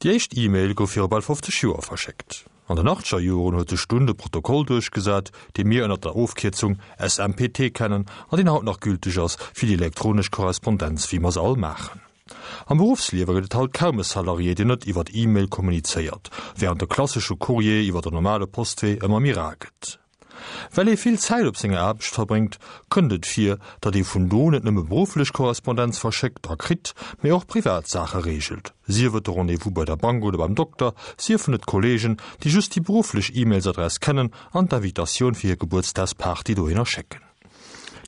Déi éischt E-Mail gouf viru bal 50 Joer verschéckt. An den achtzeger Joren huet sech dunn de Protokoll duerchgesat, dee mir ënner der Ofkierzung SMPT kennen an deen haut nach gülteg ass fir déi elektronesch Korrespondenz, wéi mer se all maachen. Am Beruffsliewe gëtt et haut kaum e Salarié, deen net iwwer E-Mail kommunizéiert, wärend de klassesche Courrier iwwer den normale Postwee ëmmer méi rar gëtt. Well ee vill Zäit op senger Aarbecht verbréngt, kënnt et vir, datt ee vun do net nëmme berufflech Korrespondenz verschéckt a kritt, mee och privat Saache reegelt, sief et de Rendez-vous bei der Bank oder beim Dokter, siefen et Kolleegen, déi just déi berufflech E-Mailsadress kennen an d'Invitatioun fir hir Gebuertsdagsparty dohinner schécken.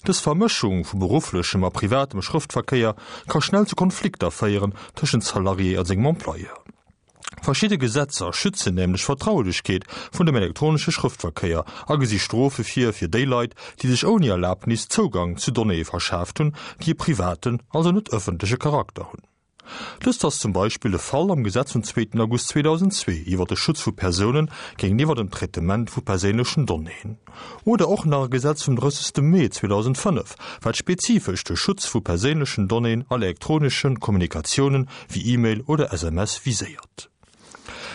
Dës Vermëschung vu berufflechem a privatem Schrëftverkéier ka schnell zu Konflikter féieren tëschent Salarié a sengem Employeur. Verschidde Gesetzer schützen nämlech d'Vertraulechkeet vun dem elektronesche Schrëftverkéier a gesi Strofe vir fir déi Leit, déi sech ouni Erlabnis Zougang zu Donnéeë verschaaft hunn, déi e privaten, also net ëffentleche Charakter hunn. Dëst ass zum Beispill de Fall am Gesetz vum zweeten August 2002 iwwer de Schutz vu Persounen géintiwwer dem Traitement vu perséinlechen Donnéeën. Oder och nach e Gesetz vum 30. Mee 2005, wat spezifesch de Schutz vu perséinlechen Donnéeën a elektronesche Kommunikatiounen wéi E-Mail oder SMS viséiert.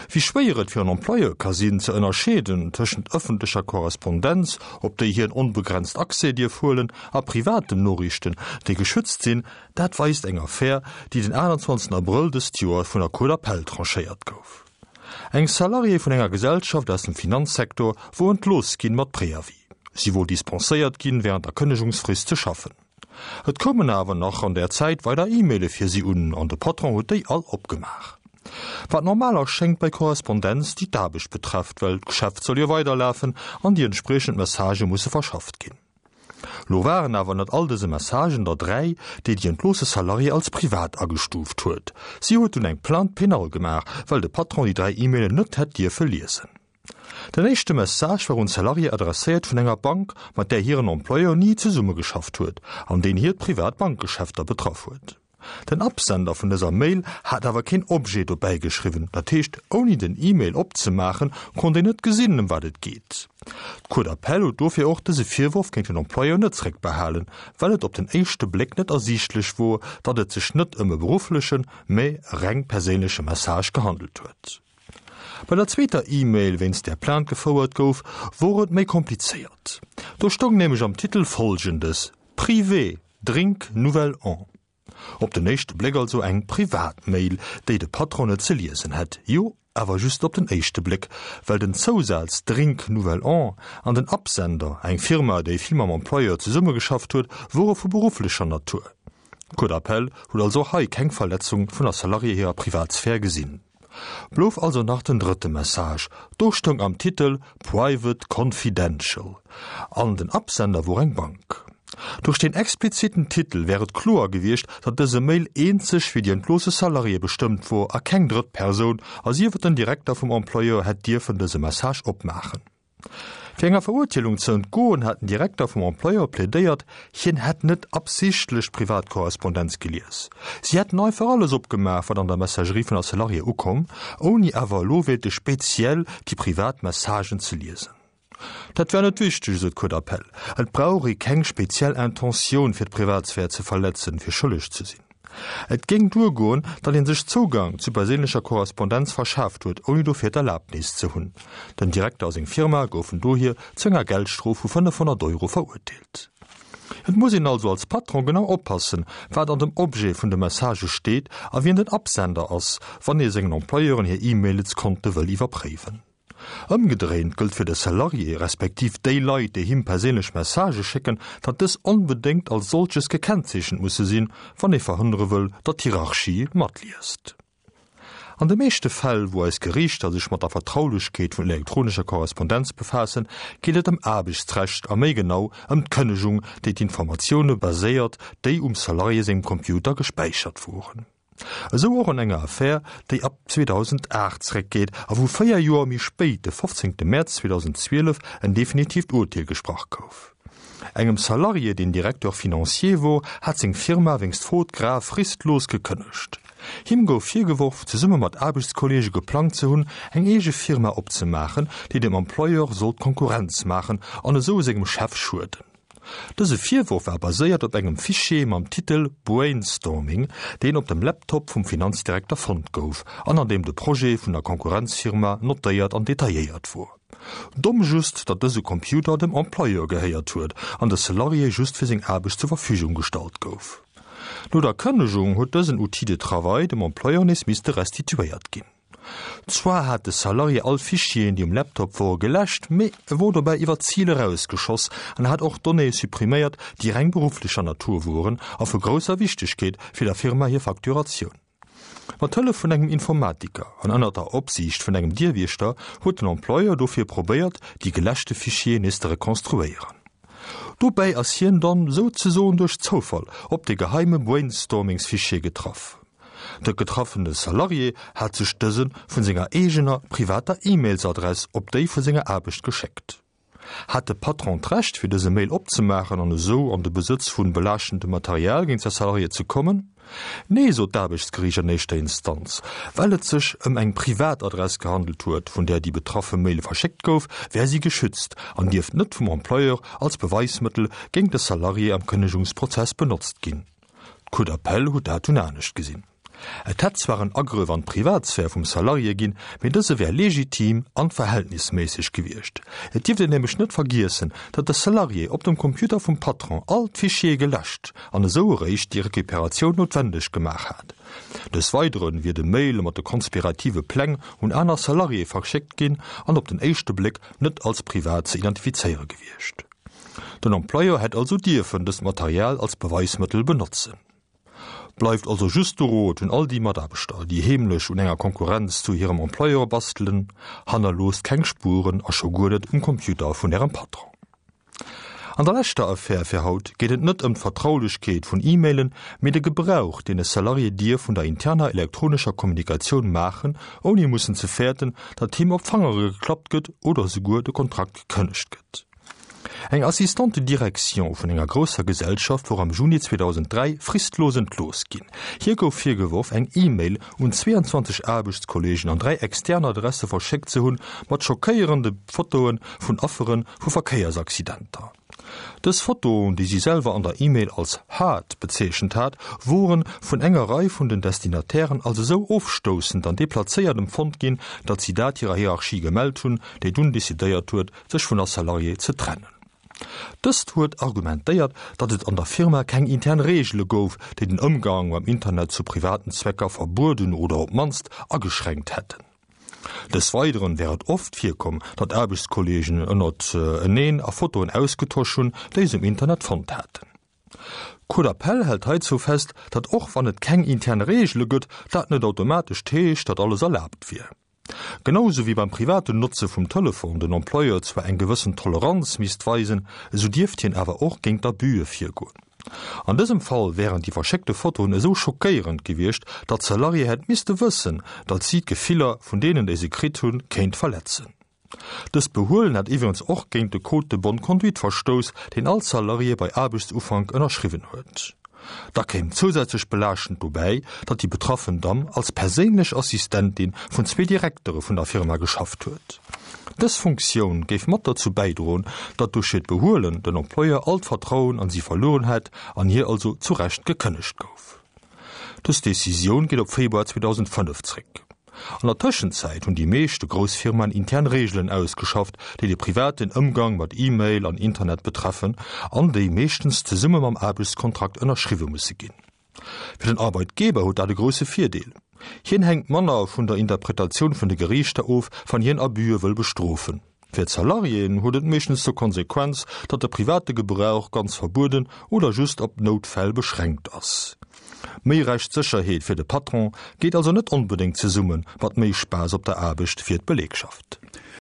Wéi schwéier et fir en Employeur ka sinn, ze ënnerscheeden tëschent ëffentlecher Korrespondenz, op déi hien onbegrenzt Accès dierf huelen, a privaten Noriichten, déi geschützt sinn, dat weist eng Affär, déi den 28 Abrëll dëst Joer vun der Cour d'appel tranchéiert gouf. Eng Salariée vun enger Gesellschaft aus dem Finanzsektor wor entlooss ginn mat Préavis. Si wor dispenséiert ginn während der Kënnegungsfrist ze schaffen. Et koumen awer nach an där Zäit weider E-Maile fir si un an de Patron huet déi all opgemaach. Wat normal erschéngt bei Korrespondenz déi d'Aarbecht betrefft, well d'Geschäft soll jo weiderlafen an déi entspriechend Messagë musse verschafft ginn. Lo waren awer ënnert all dëse Messagen der 3, déi déi entloosse Salariée als privat agestuuft huet. Si huet dunn eng Plainte pénale gemaach, well de Patron déi 3 E-Mailen net hätt dierfe liesen. Den éischte Message war un d'Salariée adresséiert vun enger Bank, mat där hiren Employeur ni zesummegeschafft huet an deen hiert privat Bankgeschäfter betraff huet. Den Absender vun dëser Mail hat awer keen Objet dobäi geschriwwen, dat heescht ouni den E-Mail opzemaachen, konnt een net gesinn ëm wat et geet. D'Cour d'appel huet dofir och dëse Virworf géint den Employeur net zréckbehalen, well et op den éischte Bléck net ersiichtlech wor, datt et sech net ëm e berufflechen, mä e reng perséinleche Message gehandelt huet. Bei der zweeter E-Mail, wéinst där Plainte gefouert gouf, wor et méi komplizéiert. Do stoung nämlech am Titel Folgendes, Privé, Drink Nouvel An. Op den éischte Bléck also eng privat Mail, déi de Patron net ze liesen hätt. Jo, awer just op den éischte Bléck, well den Zousaz Drink Nouvel An an den Absender, eng Firma, déi vill mam Employeur zesummegeschafft huet, wore vu berufflecher Natur. D'Cour d'appel huet also och hei keng Verletzung vun der Salariée hirer Privatsphär gesinn. Blouf also nach den drëtte Message, do stoung am Titel Private Confidential an den Absender wor eng Bank. Duerch deen expliziten Titel wär et kloer gewiescht, datt dëse Mail eenzeg fir déi entloosse Salariée bestëmmt wor a keng drëtt Persoun, a sief et den Direkter vum Employeur, hätt dierfen dëse Message opmaachen. Fir enger Verurteelung ze entgoen, hat den Direkter vum Employeur plädéiert, hien hätt net absichtlech d'Privatkorrespondenz gelies. Si hätten einfach alles opgemaach, wat an der Messagerie vun der Salariée ukomm, ouni awer elo wéilte speziell déi privat Messagen ze liesen. Dat wär net wichteg, esou d'Cour d'appel. Et brauch ee keng speziell Intentioun, fir d'Privatsphär ze verletzen, fir schëlleg ze sinn. Et géing duergoen, datt ee sech Zougang zu perséinlecher Korrespondenz verschaaft huet, ouni dofir d'Erlabnis ze hunn. Den Direkter a seng Firma goufen dohier zu enger Geldstrof vu 500 Euro verurteelt. Et muss een also als Patron genau oppassen, wat an dem Objet vun de Messagë steet a wien den Absender ass, wann ee sengen Employeuren hir E-Mailskonte wëll iwwerpréiwen. Ëmgedréint gëllt fir de Salarié, respektiv déi Leit, déi him perséinlech Messagë schécken, datt dës onbedéngt als solches gekennzeechent musse sinn, wann ee verhënnere wëll, datt d'Hierarchie matliest. An de meeschte Fäll, wou eis Geriichter sech mat der Vertraulechkeet vun elektronescher Korrespondenz befaassen, geet et ëm Aarbechtsrecht a méi genau ëm d'Kënnegung, déi d'Informatioune baséiert, déi um Salarié sengem Computer gespäichert woren. Esou och an enger Affär, déi ab 2008 zréckgeet a wou 4 Joer méi spéit, de 15 Mäerz 2012, en definitiivt Urteel gesprach gouf. Engem Salarié, deen Directeur financier wor, hat seng Firma wéinst Fraude grave fristlos gekënnegt. Him gouf virgeworf, zesumme mat Aarbechtskolleege geplangt ze hunn, eng eege Firma opzemaachen, déi dem Employeur sollt Konkurrenz maachen an esou sengem Chef schueden. Dëse Virworf war baséiert op engem Fichier mam Titel Brainstorming, deen op dem Laptop vum Finanzdirekter fonnt gouf an an deem de Projet vun der Konkurrenzfirma notéiert an detailléiert wor. Domm just, datt dëse Computer dem Employeur gehéiert huet an de Salarié just fir seng Aarbecht zur Verfügung gestallt gouf. No der Kënnegung huet dësen Outil de travail dem Employeur nees misste restituéiert ginn. Zwar hat de Salarié all Fichieren, déi um Laptop wore, geläscht, mee e wor dobäi iwwer d'Zil erausgeschoss an hat och Donnéeë suppriméiert, déi reng berufflecher Natur woren a vu grousser Wichtegkeet fir der Firma hir Facturatioun. Mat Hëllef vun engem Informatiker an ënner der Opsiicht vun engem Dierwiechter huet den Employeur dofir probéiert, déi geläschte Fichieren nees ze rekonstruéieren. Dobäi ass hien dann souzesoen duerch Zoufall op de geheime Brainstormingsfichier getraff. De getraffene Salarié hat sech dëse vun senger eegener privater E-Mails-Adress op déi vu senger Aarbecht geschéckt. Hat de Patron d'Recht fir dëse Mail opzemaachen an esou an de Besëtz vun belaaschtendem Material géint säi Salarié ze kommen? Nee, sot d'Aarbechtsgeriicht an éischter Instanz. Well et sech ëm eng privat Adress gehandelt huet, vun där déi betraffe Mail verschéckt gouf, wär si geschützt an dierft net vum Employeur als Beweismëttel géint de Salarié am Kënnegungsprozess benotzt ginn. D'Cour d'appel huet dat dunn anescht gesinn. Et hätt zwar en Agrëff an d'Privatsphär vum Salarié ginn, mee dëse wär legitim an verhältnisméisseg gewiescht. Et dierft een nämlech net vergiessen, datt de Salarié op dem Computer vum Patron all d'Fichiere geläscht an esou eréischt déi Recuperatioun noutwendeg gemaach hat. Des Weidere wier de Mail mat de konspirative Pläng un aner Salariéë verschéckt ginn an op den éischte Bléck net als privat ze identifizéiere gewiescht. Den Employeur hätt also dierfen dëst Material als Beweismëttel benotzen. Bleift also just de Rot un all déi Mataarbechter, déi heemlech un enger Konkurrenz zu hirem Employeur bastelen, Hannerloosst keng Spueren a scho guer net um Computer vun ärem Patron. An der leschter Affär fir haut geet et net ëm d'Vertraulechkeet vun E-Mailen, mee de Gebrauch, deen e Salarié dierf vun der interner elektronescher Kommunikatioun maachen, ouni mussen ze fäerten, datt him op d'Fangere geklappt gëtt oder esouguer de Kontrakt gekënnegt gëtt. Eng Assistante de direction vun enger grousser Gesellschaft wor am Juni 2003 fristlos entlooss ginn. Hir gouf virgeworf, eng E-Mail un 22 Aarbechtskolleegen an 3 extern Adresse verschéckt ze hunn, mat schockéierende Fotoe vun Affere vu Verkéiersaccidenter. Dës Fotoen, déi si selwer an der E-Mail als hard bezeechent hat, woren vun enger Rei vun den Destinatairen als esou ofstoussend an deplazéiert empfonnt ginn, datt si dat hirer Hierarchie gemellt hunn, déi dunn decidéiert huet, sech vun der Salariée ze trennen. Dëst huet argumentéiert, datt et an der Firma keng intern Reegele gouf, déi den Ëmgang mam Internet zu privaten Zwecker verbueden oder op d'mannst ageschränkt hätten. Des Weideren wär et oft virkomm, datt Aarbechtskolleegen ënnert eneen a Fotoen ausgetosch hunn, déi se um Internet fonnt haten. D'Cour d'appel hält heizou fest, datt och wann et keng intern Reegele gëtt, dat net automatesch heescht, datt alles erlaabt wier. Genau sou wéi beim privaten Notze vum Telefon den Employeur zwar eng gewëssen Toleranz misst weisen, esou dierft hien awer och géint Abüe virgoen. An dësem Fall wären déi verschéckte Fotoen esou schockéierend gewiescht, datt d'Salariée hätt misste wëssen, datt si d'Gefiller vun deenen, déi se kritt hunn, kéint verletzen. Dëst Behuelen hätt iwwregens och géint de Code de bonne conduite verstouss, deen all Salarié bei Aarbechtsufank ënnerschriwwen huet. Da kéim zousätzlech belaaschtend dobäi, datt déi betraffen Damm als perséinlech Assistentin vun zwee Direktere vun der Firma geschafft huet. Dës Funktioun géif mat derzou bäidroen, datt duerch hiert Behuelen den Employeur all d'Vertrauen an si verlueren hätt an hir also zu Recht gekënnegt gouf. Dës Decisioun geet op Februar 2005 zréck. An der Tëschenzäit hunn déi meeschte grouss Firmaen intern Reegelen ausgeschafft, déi de privaten Ëmgang mat E-Mail an Internet betreffen an déi meeschtens zesumme mam Aarbechtskontrakt ënnerschriwwe musse ginn. Fir den Arbeitgeber huet dat e grousse Virdeel, Hien hänkt manner vun der Interpretatioun vun de Geriichter of, wann hien Abüe wëll bestrofen. Fir d'Salariéen huet et meeschtens zur Konsequenz, datt de private Gebrauch ganz verbueden oder just op Noutfäll beschränkt ass. Méi Rechtssécherheet fir de Patron geet also net onbedéngt zesumme mat méi Spaass op der Aarbecht fir d'Belegschaft.